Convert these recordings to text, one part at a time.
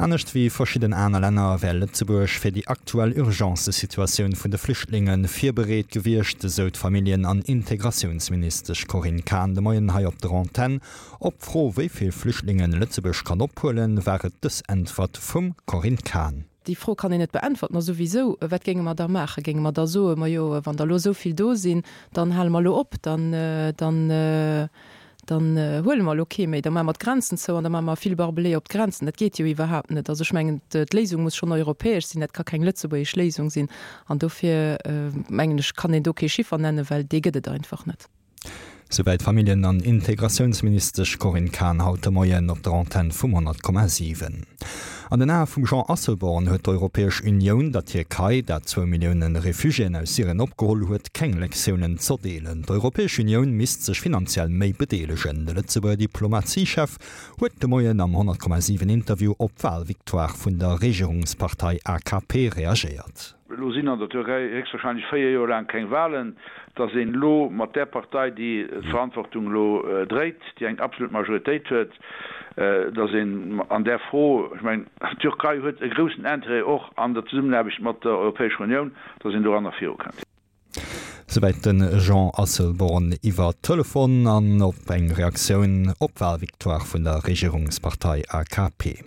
Anescht wéi verschidden aner Länner wär Lëtzebuerg fir déi aktuell Urgencesituatioun vun de Flüchtlinge virbereet gewiescht, esou d'Familljen an Integratiounsministesch Corinne Cahen de Moien hei op der Antenn. Op d'Fro, wéi vill Flüchtlinge Lëtzebuerg kann ophuelen, war et dës Äntwert vum Corinne Cahen. Déi Fro kann een net beäntwerten. A souwisou, wat géinge mer da maachen? Géinge mer da soen, Majo, wann der elo esou vill do sinn, dann hale mer elo op, dann, dann, dann huele mer elo kee méi, da maache mer d'Grenzen zou an da maache mer vill Barbelé op d'Grenzen. Dat geet jo iwwerhaapt net. Also ech mengen, d'Léisung muss schonn europäesch sinn, dat ka keng lëtzebuergesch Léisung sinn. An dofir mengen ech, kann een do kee Chiffer nennen, well dee gëtt et einfach net. Souwäit d'Familljen an Integratiounsministesch Corinne Cahen haut de Moien op der Antenn vum 100,7. An den Ae vum Jean Asselborn huet d'Europäesch Unioun der Tierkei, dat zwou Millioune Refugiéen aus Syrien opgeholl huet, keng Lektiounen z'erdeelen. D'Europäesch Unioun misst sech finanziell méi bedeelegen. De Lëtzebuerger Diplomatiechef huet de Moien am 100,7 Interview op d'Walvictoire vun der Regierungspartei AKP reagéiert. Elo sinn an der Türkei héchstwahrscheinlech 4 Joer laang keng Wahlen, datt een elo mat där Partei, déi d'Verantwortung elo dréit, déi eng absolut Majoritéit huet, datt een an där Fro, ech mengen d'Türkei huet e groussen Intérêt och an der Zesummenaarbecht mat der Europäescher Unioun, datt een doranner virukënnt. Souwäit de Jean Asselborn iwwer Telefon an op eng Reaktioun op d'Walvictoire vun der Regierungspartei AKP.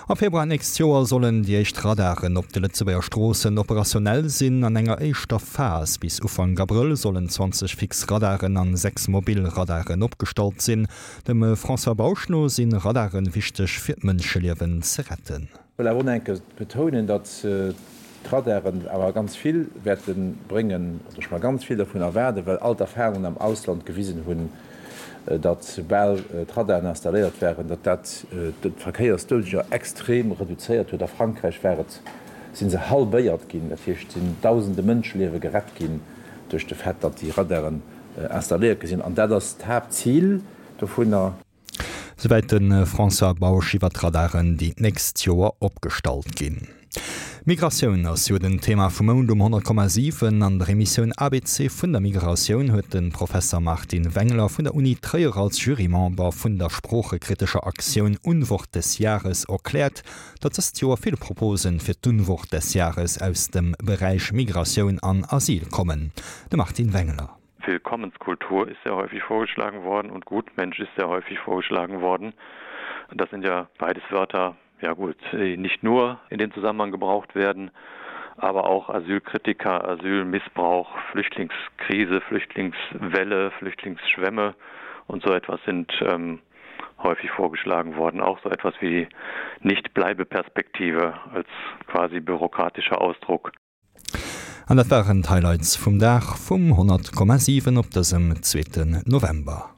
Am Februar nächst Joer sollen déi éischt Radaren op de Lëtzebuerger Stroossen operationell sinn. An enger éischter Phas bis Ufank Abrëll sollen 20 fix Radaren an 6 mobil Radaren opgestallt sinn. Dem François Bausch no si Radare wichteg fir d'Mënscheliewen ze retten. Wëll awer och nach eng Kéier betounen, datt d'Radaren awer ganz vill wäerte bréngen, oder ech mer ganz vill dovun erwaarden, well all d'Erfahrungen am Ausland gewisen hunn, datt soubal d'Radaren installéiert waren, datt dat d'Verkéiersdoudeger extrem reduzéiert huet. A Frankräich war et, si se halbéiert ginn, dat heescht, et sinn dausende Mënscheliewe gerett ginn duerch de Fait, datt déi Radaren installéiert gi sinn. An dat ass d'Haaptzil dovunner. Souwäit de François Bausch iwwer d'Radaren, déi d'nächst Joer opgestallt ginn. Migratioun ass jo den Thema vum Mount um 100,7. An der Emissioun abc vun der Migratioun huet de Professer Martin Wengler vun der Uni Tréier als Jurymember vun der sproochekritescher Aktioun Unwort des Jahres erkläert, datt dëst Joer vill Proposen fir d'Unwort des Jahres aus dem Beräich Migratioun an Asyl kommen. De Martin Wengler. Willkommenskultur ist sehr häufig vorgeschlagen worden und Gutmensch ist sehr häufig vorgeschlagen worden. Das sind ja beides Wörter, ja gut, die nicht nur in dem Zusammenhang gebraucht werden, aber auch Asylkritiker, Asylmissbrauch, Flüchtlingskrise, Flüchtlingswelle, Flüchtlingsschwämme und so etwas sind ähm, häufig vorgeschlagen worden. Auch so etwas wie Nichtbleibeperspektive als quasi bürokratischer Ausdruck. An dat waren d'Highlights vum Dag vum 100,7 op dësem zweeten November.